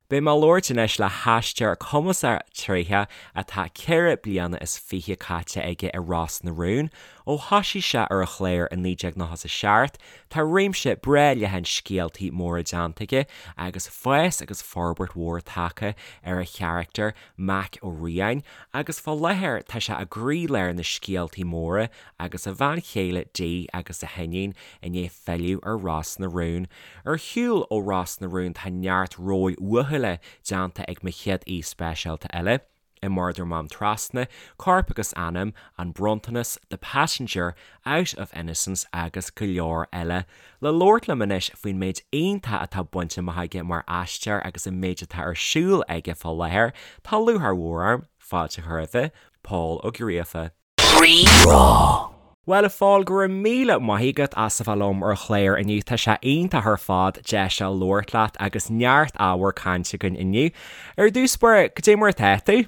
Beidh mé ag labhairt anois le haisteoir cumasach tréitheach atá 24 bliana is caite aige i Ros na Rún. Ó thoisigh sé ar an chlár i 1997, tá réimse breá leathan scéaltaí móra déanta aige agus fás agus forbairt mhór tagtha ar a charachtar, Mac Ó Riain, agus fá láthair tá sé i gcroílár na scéaltaí móra agus a bhean chéile Dee agus a hiníon i ndiaidh filleadh ar Ros na Rún. Ar shiúl ó Ros na Rún tá neart róil uathúla déanta ag mo chéad aoi speisialta eile, i Murdar Mám Trasna, Corp agus Anam, An Bronntanas, The Passenger, Out of Innocence agus go leor eile. Le labhairt liom anois faoin méid iontach atá bainte amach aige mar aisteoir agus an méid atá ar siúl aige fá láthair, tá lúcháir mhór orm fáilte a chur roimhe, Pól Ó Gríofa. Rí-Rá. Bhuel, a Phóil, go raibh míle maith agat as a bheith liom ar an chlár inniu. Tá sé iontach ar fad deis a labhairt leat agus neart ábhar cainte againn inniu. Ar dtús báire, cad é mar atá tú?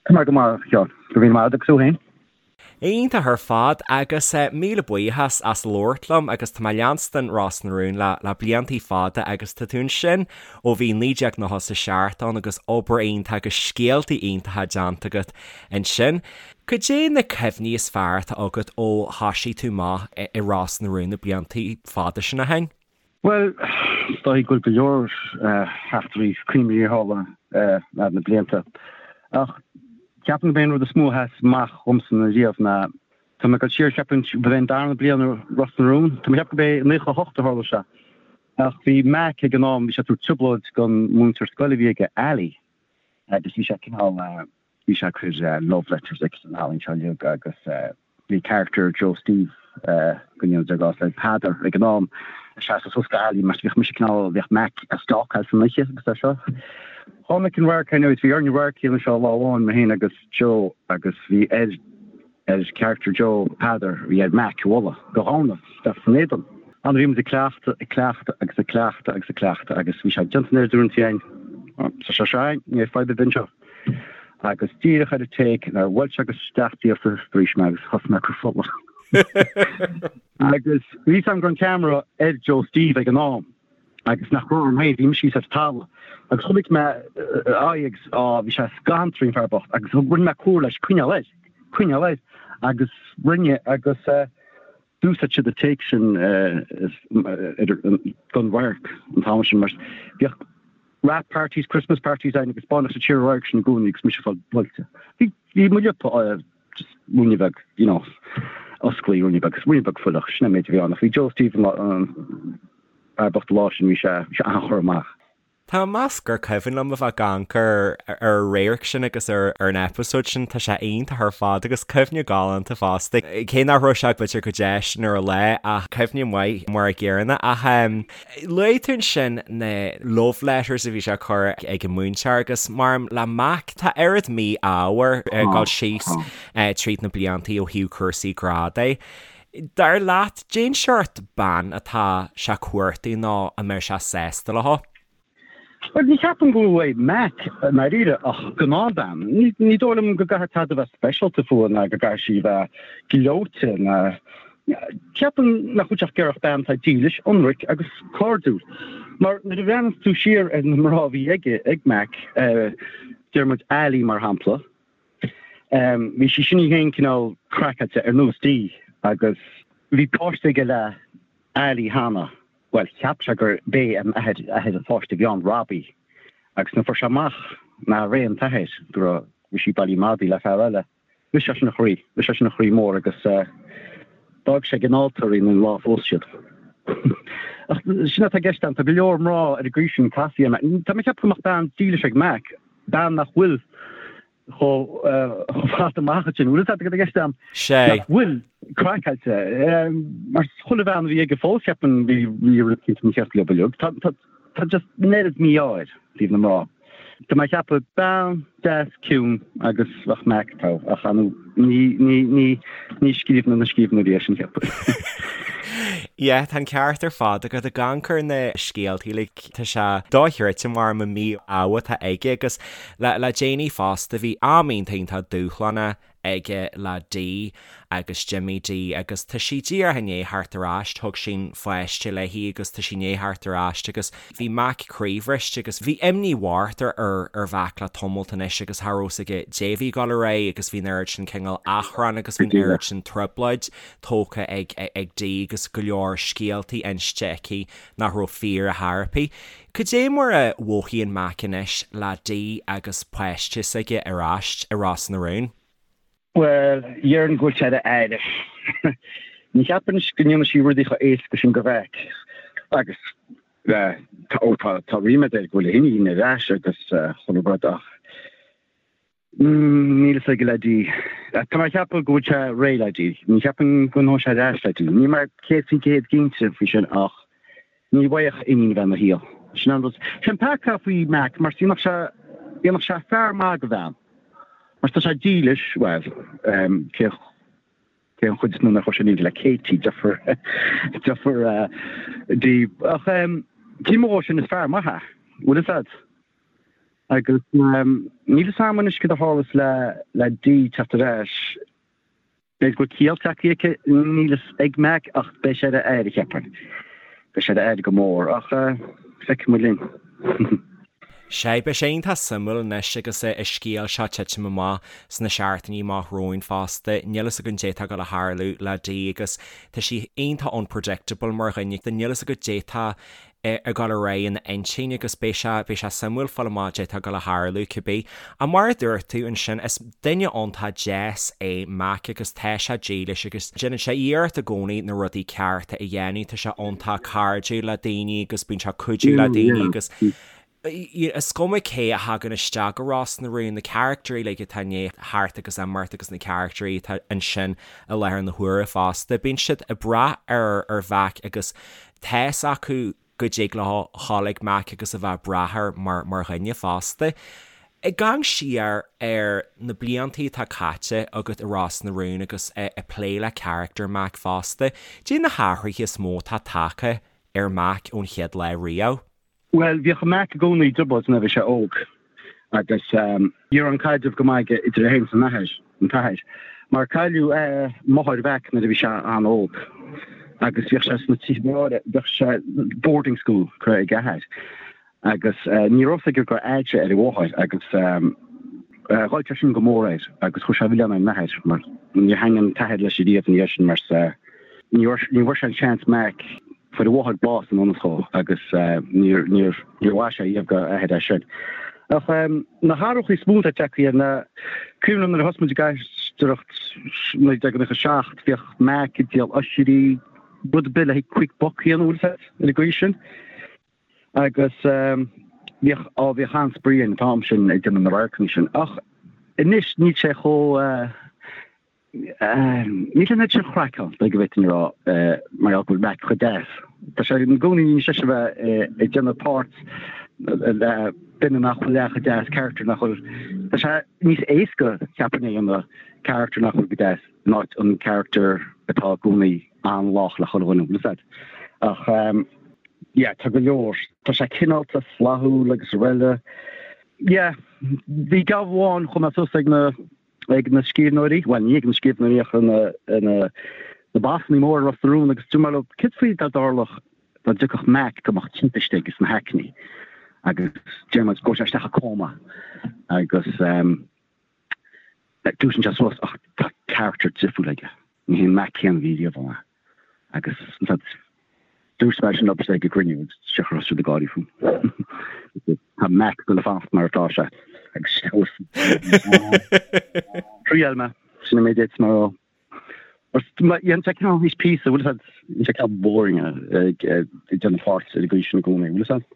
Tá mé go maith, a Sheáin. Go raibh míle maith agat agus tú féin? Iontach ar fad agus míle buíochas as labhairt liom agus tá mé ag leanstan Ros na Rún le le bliantaí fada agus tá tú ansin ó bhí 1997 ann agus obair iontach agus scéaltaí iontacha déanta agat ansin. Cad é na cuimhní is fearr atá agat ó thoisigh tú amach i Ros na Rún na bliantaí fada sin ó shin? Bhuel, is dóigh go bhfuil go leor eachtraí cuimhní a tharla thar na blianta. Ach ceapaim gurb é an rud is mó a sheas amach dhomsa ariamh ná, tá mé ag dul siar, cheapfainn, ba é an darna bliain i Ros na Rún, tá mé ag ceapadh gurb é 98 a tharla sé. Ach bhí Mac ag an am, bhí sé ag tabhairt trioblóid don mhúinteoir scoile a bhí aige, Ali, agus bhí sé cineál, Bhí sé ag cur love letters agus an ealaín seo uilig agus bhí character Joe Steve go ndéana Dia grásta air, Peadar ag an am, ag seasamh suas do Ali mar bhíodh mise cineál, bhíodh Mac á stalkáil san oíche agus é seo. Tháinig an radharc anyways, bhí orainn radharc a dhéanamh seo lá amháin, mé féin agus Joe agus bhí ar ar character Joe, Peadar, bhí air Mac a bhualadh go dhomhnach isteach san éadan. An bhí muid ag cleachtadh, ag cleachtadh agus ag cleachtadh agus ag cleachtadh agus bhí sé déanta an oiread uaireanta againn. Tá sé seo againn, ní fadhb ar bith anseo. Agus díreach ar an take nuair a bhuail sé go isteach díreach bhrís mé agus thosaigh mé ag cur fola. Agus bhí fhios agam go raibh an ceamara ar Joe Steve ag an am agus nach raibh orm féin, bhí mise thíos ar an talamh. Agus chonaic mé a aghaidh agus á bhí sé scanraithe an fear bocht agus rinne mé comhartha leis coinneáil air, coinneáil air agus rinne agus eh, D'úsáid siad an take sin don radharc an t-am sin mar bhíodh wrap parties, Christmas parties ann agus baineadh siad siar an radharc sin i gcónaí agus mise ag fáil buailte. Bhí bhí mo liopa just ruainne beag, you know, osclaí ruainne beag, ruainne beag fuileach, sin an méid a bhí ann ach bhí Joe Steve an fear bocht an lá sin bhí sé bhí sé an-churtha amach. Tá mé ag meas gur cuimhin liom a bheith ag amharc ar an radharc sin agus ar an eipeasóid sin, tá sé iontach ar fad agus cuimhne galánta fosta. Cé nach raibh sé b'fhéidir chomh déisteanach ar an lá ach cuimhne maith mar a gcéanna. Ach luaigh tú ansin na love letters a bhí sé ag cur ag an múinteoir agus maram le Mac tá oiread mí-ádh air ag dul síos tríd na bliantaí ó thaobh cúrsaí grá de. Dar leat, cén seort bean atá sé ag cuartú nó a mbeadh sé sásta leo? Bhuel, ní cheapaim go bhfuil uaidh Mac i ndáiríre ach gnáthbhean. Ní dóigh liom go gcaithfidh tada a bheith speisialta fúithi ná go gcaithfidh sí a bheith gleoite ná. Ceapaim nach bhfuil sé ach ag iarraidh bean atá dílis, ionraic agus cairdiúil. Mar nuair a bhreathnaíonn tú siar ar na mná a bhí aige, ag Mac, deir muid Ali mar shampla, Bhí sí sin í féin cineál craiceáilte ar nós Dee agus bhí páiste aige le Ali cheana, bhuel cheap sé gur b'é an athair athair an pháiste a bhí ann, Robbie, agus nuair a fuair sé amach nárbh é an t-athair, go raibh bhí sí bailithe madaidh le fear eile, bhris sé sin a chroí, bhris sé sin a chroí mór agus d'fhág sé ag an altóir í an lá a phós siad. Ach sin atá i gceist ann, tá go leor mná ar an gcaoi sin casaí ar Mac. Tá mé ag ceapadh go mbeadh bean dílis ag Mac, bean nach bhfuil chomh fada amach ansin. Bhfuil fhios agat i gceist agam? Sé. Nach bhfuil craiceáilte. Mar chuile bhean a bhí aige fós, cheapfainn, bhí bhí rud éicint mícheart leo uilig. Tá tá tá just an oiread mí-ádh air i dtaobh na mná. Tá mé ag ceapadh bean deas ciúin agus bheadh Mac togha ach ar ndóigh ní ní ní ní scríbhneoir na scríbhneoirí é sin cheapfainn. Yeah, tá an ceart ar fad agat ag amharc ar na scéaltaí like tá sé dochreidte mar an mí-ádh atá aige agus le le déanaí fosta bhí am iontach iontach dúshlánach. aige le Dee agus Jimmy Dee agus tá sí díreach i ndiaidh theacht ar ais, thug sí an pháiste léi agus tá sí i ndiaidh theacht ar ais agus bhí Mac croíbhriste agus bhí imní mhór ar ar Mhac le tamalt anois agus cha raibh fhios aige dé bhí ag dul ar aghaidh agus bhí an oiread sin cineál achrann agus bhí an oiread sin trioblóid tógtha ag ag Dee agus go leor scéaltaí inste aici nach raibh fíor ar chor ar bith. Cad é mar a mhothaíonn Mac anois le Dee agus páiste s'aige ar ais i Ros na Rún? Bhuel, déarfainn go bhfuil sé ar a aire. Ní cheapaim go ndéanfaidh sí rudaí chomh éasca sin go Mhac. Agus tá, ó tá, tá ríméad air go bhfuil a hiníon ar ais agus chuile rud ach níl fhios aige le Dee. Tá mé ag ceapadh go bhfuil sé réidh le Dee. Ní cheapaim go bhfanfaidh sé ar ais le Dee. Níl mé 100% cinnte faoi sin ach ní bhfaigheadh iníon a bheith ina shaol. Sin an rud. Sin peaca faoi Mac mar dhéanfadh sé, dhéanfadh sé fear maith go bhean. Mar tá sé dílis, bhuel, cé cé an chuid is mó nach raibh sé dílis le Katie, deirfiúr, deirfiúr Dee. Ach taobh amuigh dhó sin is fear maith é, bhfuil fhios a'd. Agus níl fhios a'm anois cad a tharlas le le Dee teacht ar ais. B'fhéidir go bhfuil ciall tagtha aici, níl fhios ag Mac ach beidh sé ar a aire, cheapfainn. Beidh sé ar a aire go mór, ach feicfidh muid linn. Sea, beidh sé iontach suimiúil anois agus an scéal seo titim amach sna seachtainí amach romhainn fosta. Níl fhios againn dé tá ag dul a tharlú le Dee agus tá sí iontach unpredictable mar dhuine. Níl fhios agat dé tá ag dul ar aghaidh ina intinn agus beidh sé, beidh sé suimiúil fáil amach dé tá ag dul a tharlú cibé. Ach mar a dúirt tú ansin, is duine iontach deas é Mac agus tá sé dílis agus déanann sé iarracht i gcónaí na rudaí cearta a dhéanamh, tá sé iontach cairdiúil le daoine agus bíonn sé ag cuidiú le daoine agus is cuma cé a thagann isteach go Ros na Rún, na caractairí uilig atá i ndiaidh theacht agus imeacht agus na caractairí atá ansin i láthair na huaire fosta, bíonn siad ag brath ar ar Mhac agus Tá's acu go dtig leo dhul ag Mac agus a bheith ag brath air mar mar dhuine fosta. Ag amharc siar ar na bliantaí atá caite agat i Ros na Rún agus ag plé le carachtar Mac fosta, dé na hathruithe is mó atá tagtha ar Mac ón chéad lá riamh? Bhuel, bhíodh Mac i gcónaí i dtrioblóid nuair a bhí sé óg agus ní raibh an caidreamh go maith aige idir é féin is an athair, an t-athair, mar cailleadh máthair Mhac nuair a bhí sé an-óg agus bhíodh sé sna tithe bhíodh sé boarding school curtha ag a athair agus ní raibh fhios aige gur fheadd sé ar a mháthair agus ghoill sé sin go mór air agus chuir sé an milleán ar an athair mar níor thaitnigh an t-athair leis ariamh ina dhiaidh sin mar ní bhfuair sé an seans Mac Fuair a mháthair bás i ngan fhios dhó agus níor mhaith sé riamh dá athair é sin. Ach na hathruithe is mó atá tagtha air ná, cuimhin liom nuair a thosaigh muid ag aisteoireacht 1997, bhíodh Mac ag díol oisrí, rud ar bith le haghaidh quick buck a dhéanamh, bhfuil fhios agat, ar an gcaoi sin. Agus bhíodh, á bhíodh an-spraoi an t-am sin ag déanamh na radharcanna sin. Ach anois níl sé chomh. Níl an oiread sin craic ann, go bhféadfainn a rá, mar gheall go bhfuil Mac chomh deas. Tá sé i gcónaí níos deise a bheith ag déanamh páirt le duine nach bhfuil leath chomh deas, character nach bhfuil, tá sé níos éasca, cheapfainn, a dhéanamh character nach bhfuil go deas in áit an character atá i gcónaí an-lách le chuile dhuine, bhfuil fhios agat. Ach yeah, tá go leor, tá sé cineálta, flaithiúil agus araile. Yeah, bhí gabh amháin chomh maith suas ag na ag na scríbhneoirí, bhuel ní ag na scríbhneoirí ach na na bossanna móra i Ros na Rún agus dúirt mé leo céard faoi dá dtarlódh dá dtiocfadh Mac go mbeadh timpiste aige sna haicní agus deir muid go sé isteach i cóma agus dúisíonn sé suas ach tá character difriúil aige. Ní hé an Mac céanna a bhí riamh ann agus dúirt mé sin leo ag an gcruinniú agus thosaigh siad ag gáirí fúm. Tá Mac ag dul a fanacht mar atá sé agus Thriail mé, sin an méid a d'fhéadfadh mé a rá. Dhéan sé cineál níos píosa, bhfuil fhios agat, dhéan sé cineál boring ag déanamh páirt ar an gcaoi sin i gcónaí, bhfuil fhios agat?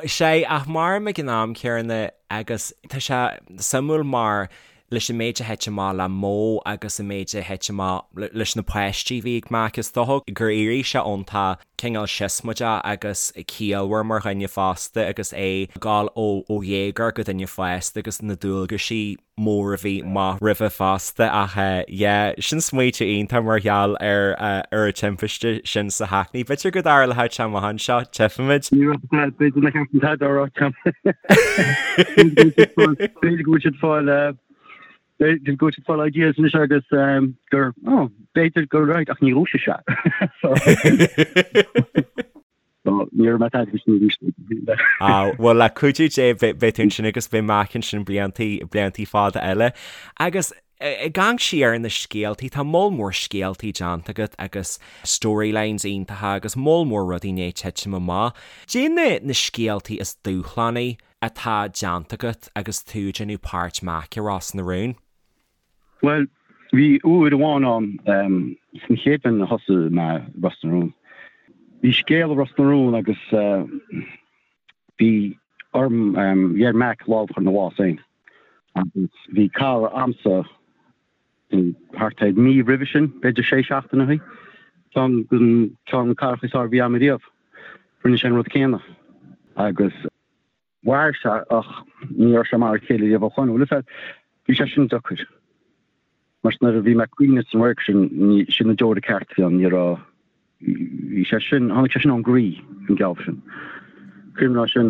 Sea, ach mairim ag an am céanna agus tá sé suimiúil mar leis an méid a thit amach le Mo agus an méid a thit amach leis na páistí a bhí ag Mac, is dócha gur éirigh sé iontach cineál siosmaideach agus ciallmhar mar dhuine fosta agus é ag dul ó dhéagóir go duine fásta agus na dualgaisí mór a bhí amach roimhe fosta ach yeah sin smaoitiú iontach mar gheall ar ar an timpiste sin sa Hackney. B'fhéidir go dtarlóidh sé amach anseo, tchífimid. Ní raibh sé b'fhéidir nach ceart an t-adar a rá B'fhéidir go bhfuil siad fáil. B'fhéidir go bhfuil siad ag fáil ideas anois agus gur, oh, b'fhéidir gur right, ach ní dhúisigh sé. So, ní raibh mé tada sin arís. Ah, bhuel le cuidiú Dé beidh tú ansin agus beidh Mac ansin bliantaí, bliantaí fada eile. Agus ag amharc siar ar na scéaltaí, tá moll mór scéaltaí déanta agat agus storylines iontacha agus moll mór rudaí i ndiaidh titim amach. Cad é na scéaltaí is dúshlánaí atá déanta agat agus tú ag déanamh páirt Mac i Ros na Rún? Bhuel, bhí uair amháin ann, san chéad bhliain a thosaigh mé i Ros na Rún. Bhí scéal i Ros na Rún agus bhí orm, bhí ar Mac lámh a chur ina bhás féin. Agus bhí cara a'msa thart ar mí roimhe sin, b'fhéidir sé seachtaine ó shin, ceann den ceann na caracha is fearr a bhí a'm ariamh. Rinne sé an rud céanna agus. Mhair sé ach ní raibh sé mar a chéile riamh ó shoin. Bhuel, is ea, bhí sé sin deacair. Mar nuair a bhí mé ag caoineadh san radharc sin, ní, sin na deora ceart a bhí ann, ní raibh, bhí sé sin, tháinig sé sin ón gcroí, an geábh sin. Cuimhin liom sin,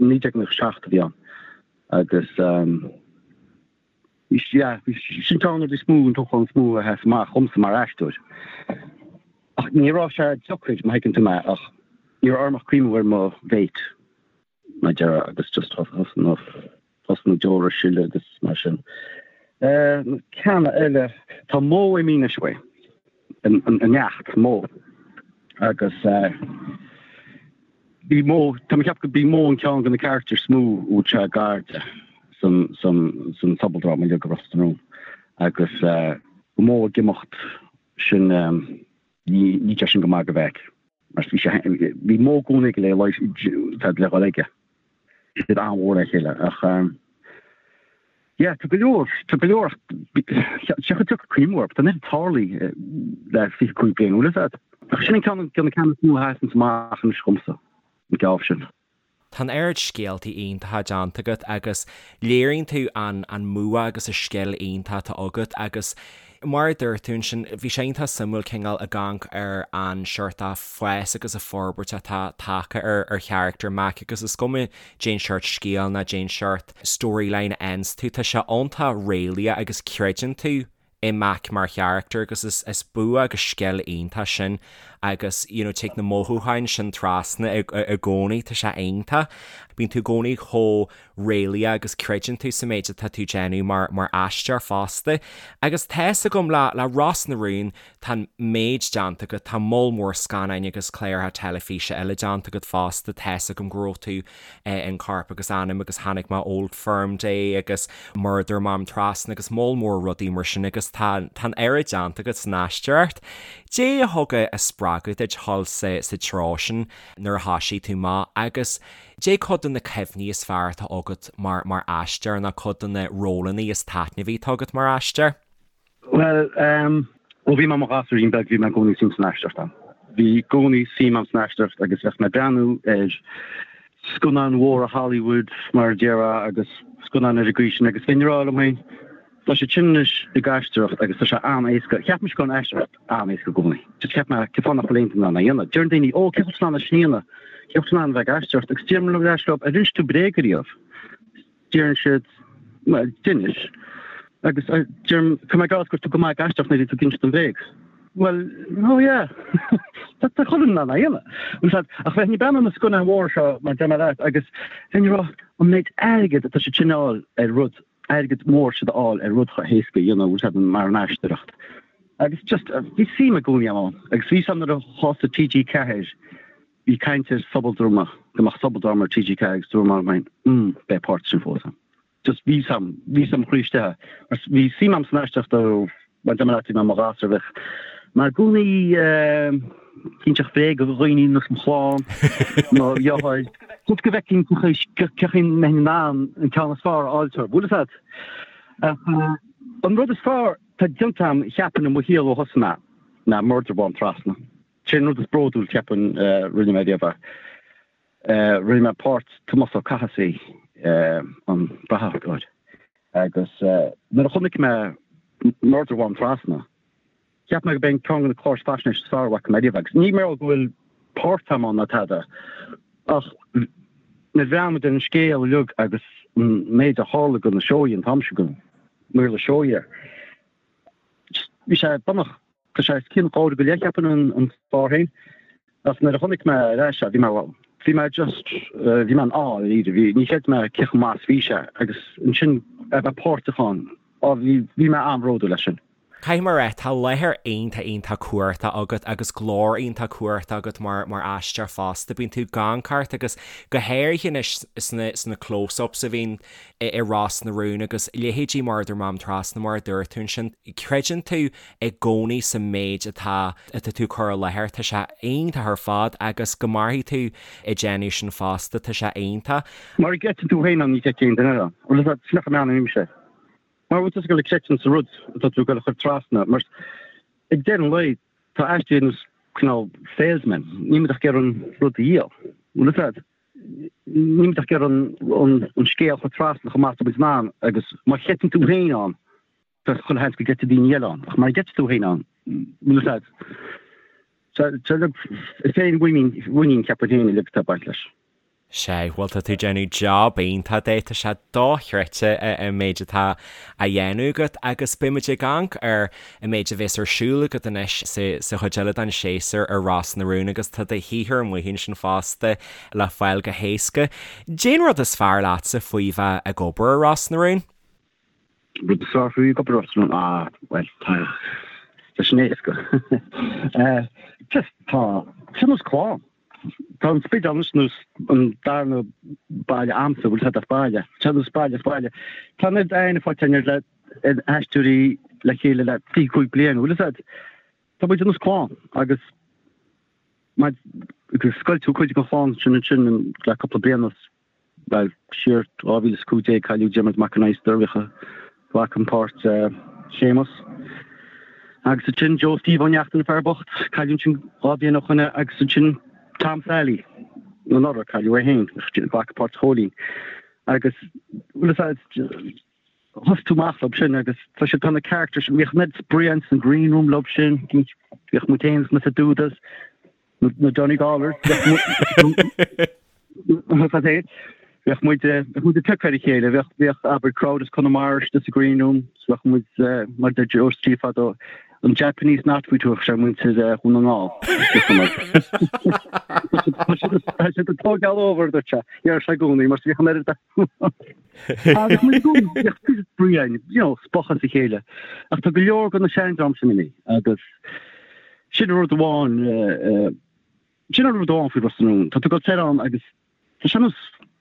1997 a bhí ann agus, Yeah, sin ceann de na rudaí is mó, an dúshlán is mó a sheas amach dhomsa mar aisteoir. Ach ní raibh sé deacair, má thuigeann tú mé, ach ní raibh orm ach cuimhniú ar mo mhéit, mar a déarfá, agus just thosaigh na deora ag sileadh agus mar sin. Na ceanna eile, tá Mo imithe anois uaidh, an neacht, Mo, agus Bhí Mo, tá mé ag ceapadh go b'í Mo an ceann de na carachtair is mó a bhfuil sé gar di san, san, san sobaldráma uilig i Ros na Rún agus go Mo ag imeacht sin, ní, ní sé sin go maith do Mheaig mar bhí sé, bhí Mo i gcónaí ag le, tá le dhul aige. Bhí siad an-mhór le chéile ach yeah tá go leor, tá go leor ach sé chomh deacair cuimhniú orthu, tá an oiread tarlaithe le 25 bliain, bhfuil fhios agat? Ach sin an ceann de na ceanna is mó a sheasanns amach anois dhomsa, an geábh sin. Tá an oiread scéaltaí iontacha déanta agat agus léiríonn tú an an mbua agus an scil iontach atá agat agus mar a dúirt tú ansin, bhí sé iontach suimiúil cineál ag amharc ar an seort fás agus an forbairt atá tagtha ar ar charachtar Mac agus is cuma cén seort scéal ná cén seort storyline a fhaigheanns tú, tá sé iontach réalaíoch agus creideann tú i Mac mar charachtar agus is is bua agus scil iontach sin agus you know tig na mothúcháin sin trasna i i gcónaí, tá sé iontach. Bíonn tú i gcónaí chomh réalaíoch agus creideann tú sa méid atá tú déanamh mar mar aisteoir fosta. Agus tá's agam le le Ros na Rún Tá an méid déanta agat, tá moll mór scannáin agus cláracha teilifíse eile déanta agat fosta, tá's agam go raibh tú in Corp agus Anam agus chonaic mé Old Firm Day agus Murdair Mám Trasna agus moll mór rudaí mar sin agus tá tá an oiread déanta agat san aisteoireacht. Dé a thug a spreagadh duit dhul sa sa treo sin nuair a thoisigh tú amach agus dé cuid de na cuimhní is fearr atá agat mar mar aisteoir nó cuid de na rólanna is taitneamhaí atá agat mar aisteoir? Bhuel, ó bhí mé i mo ghasúirín beag bhí mé i gcónaí suim san aisteoireacht a'm. Bhí i gcónaí suim a'm san aisteoireacht agus bheadh mé ag breathnú ar scannáin mhóra Hollywood mar a déarfá agus scannáin ar an gcaoi sin agus bheinn ag rá liom féin, tá siad sin anois ag aisteoireacht agus tá sé an-éasca. Cheap mise go raibh an aisteoireacht an-éasca i gcónaí. Just cheap mé cén fáth nach bhfuil aon duine in ann é a dhéanamh. Deireann daoine, ó cén chaoi bhfuil tú in ann é sin a dhéanamh? Cén chaoi bhfuil tú in ann a bheith ag aisteoireacht? Agus deirim ar ais leo, ar inis tú bréag ariamh? Deireann siad, Bhuel, d'inis. Agus deirim, Tá mé ag rá go raibh tú go maith ag aisteoireacht nuair a bhí tú ag insint an bhréag. Bhuel, oh yeah. Tá tá chuile dhuine in ann é a dhéanamh. Bhfuil a fhios agat, ach bheinn ag breathnú ar na scannáin mhóra seo, mar deir mé leat, agus bheinn ag rá, an méid airgid atá siad sin a fháil ar rud, airgead mór siad a fháil ar rud chomh héasca a dhéanamh, bhfuil a fhios agat, mar an aisteoireacht. Agus just, bhí suim i gcónaí ann. Agus bhí a fhios agam nuair a thosaigh TG4, Bhí caint ar sobaldráma, go mbeadh sobaldráma ar TG4 agus dúirt mé liom féin, mm, beidh páirt sin fós agam. Just bhí 'fhios a'm, bhí 'fhios a'm mo chroí istigh. Mar bhí suim a'm san aisteoireacht ó, mar deir mé leat, bhí mé i mo ghasúr, bheadh mé i gcónaí ag inseacht bréaga do dhaoine nós mo chlann, mo dheartháir. Just go bhfeicfinn cén chaoi a mbeinn in ann an ceann is fearr a fháil orthu. Bhfuil 'fhios a'd? Ach an rud is fearr atá déanta a'm, cheapfainn, i mo shaol ó thosaigh mé, ná Murdair Mhám Trasna. Sin an rud is bródúil, cheapfainn, rinne mé riamh. Rinne mé páirt Tomás Ó Cathasaigh, an brathadóir, agus nuair a chonaic mé Murdair Mhám Trasna, cheap mé go b'é an ceann de na cláir faisnéise is fearr a bhfaca mé riamh. Agus ní mar go bhfuil páirt agam ann ná tada, ach nuair a bhreathnaigh muid ar an scéal uilig agus. an méid a tharla do na Seoighe an t-am sin, do Mhaorla Seoighe. Just bhí sé bunach, tá sé os cionn dhá uair go leith cheapfainn an clár féin. Ach nuair a chonaic mé ar ais é, bhí mé, bhuel, bhí mé just, bhí mé in awe dáiríre, bhí, ní chreid mé cé chomh maith is bhí sé agus ansin a bheith páirteach ann, á bhí, bhí mé an-bhródúil as sin. Caithfidh mé a rá, tá láthair iontach iontach cumhachtach agat agus glór iontach cumhachtach agat mar mar aisteoir fosta. Bíonn tú ag amharc ort agus go háirithe anois sna sna close-ups a bhíonn i i Ros na Rún agus leithéidí Murdair Mám Trasna mar a dúirt tú ansin, creideann tú i gcónaí sa méid atá atá tú ag cur i láthair. Tá sé iontach ar fad agus go mairfidh tú ag déanamh sin fosta, tá sé iontach. Mura gcreideann tú féin ann ní chreidfidh aon duine eile ann. Bhuel, sin nach meanmnaím sé. Mar bhfuil tusa ag dul ag creidiúint sa rud atá tú ag dul a chur trasna, mar ag deireadh an lae tá aisteoirí ar nós cineál salesmen, níl muid ach ag iarraidh an rud a dhíol. Bhfuil fhios agat? Níl muid ach ag iarraidh an scéal a chur trasna chomh maith is atá muid in ann agus má chreideann tú féin ann, tá chuile sheans go gcreidfidh daoine eile ann, ach mara gcreideann tú féin ann, bhfuil fhios agat? Is é an mhuinín, ceapaim féin, uilig atá ag baint leis. Sea, bhuel tá tú ag déanamh job iontach de, tá sé dochreidte an méid atá á dhéanamh agat agus beidh muid ag amharc ar an méid a bhéas ar siúl agat anois sa chuid eile den séasúr ar Ros na Rún agus tá do shaothar amuigh ansin fosta le fáil go héasca. Cén rud is fearr leatsa faoi bheith ag obair ar Ros na Rún? Rud is fearr faoi ag obair ar Ros na Rún? Ah, bhuel, tá, tá sin éasca. Just tá, tá nós clann. Tá an Spidéal anois nós an darna baile a'msa, bhfuil fhios a'd as baile. Tá nós baile as baile. Tá an oiread aithne faighte againn ar le aisteoirí le chéile le 25 bliain, bhfuil fhios a'd. Tá muid ar nós clann agus mar scoilt tú cuid den chlann sin ansin le cúpla bliain anuas. Bhuel, siar 2015 cailleadh Diarmuid Mac Con Adhastair, bhíodh a ghlacann páirt Séamus. Agus ansin Joe Steve Ó Neachtain, fear bocht, cailleadh ansin 2 bhliain ó shoin agus ansin Tom Sally anuraidh, cailleadh é féin, ghlac páirt Chóilín. Agus bhfuil fhios a'd, thosaigh tú amach leo sin agus tá siad, tá na characters, bhíodh an oiread spraoi ins an green room leo sin, bhíodh muid féin sna Dudas, Na Donegallers. Bheadh muid bheadh muid ag piocadh ar a chéile, bheadh bheadh abair crowd as Conamara istigh sa green room, so bheadh muid mar deir Joe Steve fadó, an Japanese knotweed a thug sé ar muintir Dhún na nGall. Tá siad ag tógáil over dúirt sé, dhear sé i gcónaí mar bhíodh an oiread Agus muid i gcónaí bheadh spraoi againn, you know, spochadh as a chéile. Ach tá go leor de na seandream sin imithe agus Sin rud amháin, sin an rud amháin faoi Ros na Rún. Tá tú ag dul soir ann agus tá sé ar nós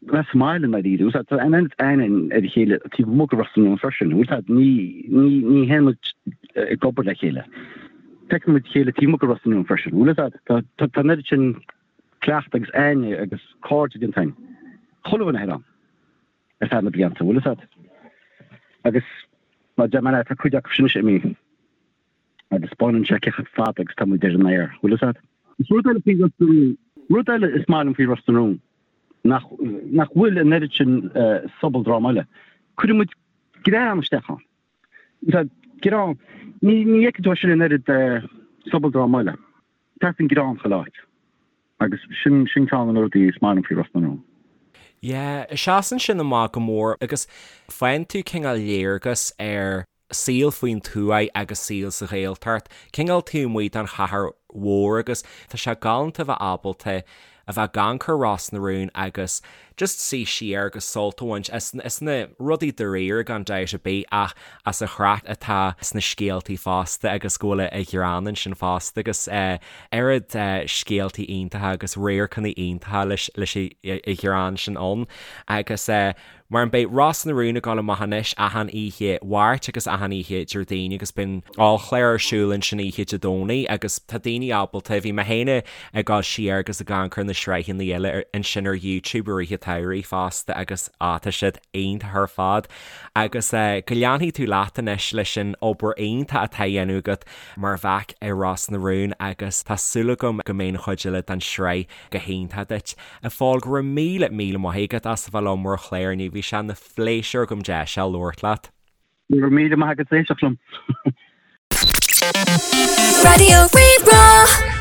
bheith sa mbaile i ndáiríre. Tá an oiread aithne ar a chéile taobh amuigh de Ros na Rún freisin. Bhfuil fhios a'd, ní, ní, ní théann muid ag obair le chéile. Feiceann muid a chéile taobh amuigh de Ros na Rún freisin. Bhfuil fhios a'd, tá, tá, tá an oiread sin cleachtadh agus aithne agus cairde déanta againn. Chuile dhuine thoir ann ar feadh na blianta, bhfuil fhios a'd. Agus mar deir mé leat, tá cuid acu sin anois imithe. Agus baineann sé cé chomh fada agus tá muid ar an aer, bhfuil fhios a'd? Is rud eile faoi Ros na Rún, rud eile is maith liom faoi Ros na Rún, nach, nach bhfuil an oiread sin sobaldráma eile. Cuireann muid greann isteach ann. Tá greann, ní, ní fheiceann tú é sin in oiread sobaldráma eile. Teastaíonn greann chuile áit. Agus sin, sin ceann de na rudaí is maith liom faoi Ros na Rún. Yeah, seasann sin amach go mór agus faigheann tú cineál léargas ar saol faoin tuath agus saol sa Ghaeltacht, cineál taobh amuigh den chathair mhór agus tá sé galánta a bheith ábalta a bheith ag amharc ar Ros na Rún agus just suí siar agus sult a bhaint as as na rudaí dáiríre gan dabht ar bith ach as an chraic atá sna scéaltaí fosta agus go bhfuil an greann ansin fosta agus oiread scéaltaí iontacha agus radharcanna iontacha leis leis an ghreann sin ann agus Mar an beidh Ros na Rún ag dul amach anois achan oíche Mháirt agus achan oíche Déardaoin agus bíonn ollchlár ar siúl ansin oíche Dé Domhnaigh agus tá daoine ábalta, bhí mé féin ag dul siar agus ag amharc ar na sraitheanna eile ansin ar YouTube i rith an tsamhraidh fosta agus á tá siad iontach ar fad agus go leanfaidh tú leat anois leis an obair iontach atá á dhéanamh agat mar mhac i Ros na Rún agus tá súil agam go mbeidh an chuid eile den sraith go hiontach duit. A Phóil, go raibh míle, míle maith agat as a bheith liom ar an chlár inniu. Bhí sé ina phléisiúr agam deis a labhairt leat. Go raibh míle maith agat as éisteacht liom. Raidió Rí-Rá.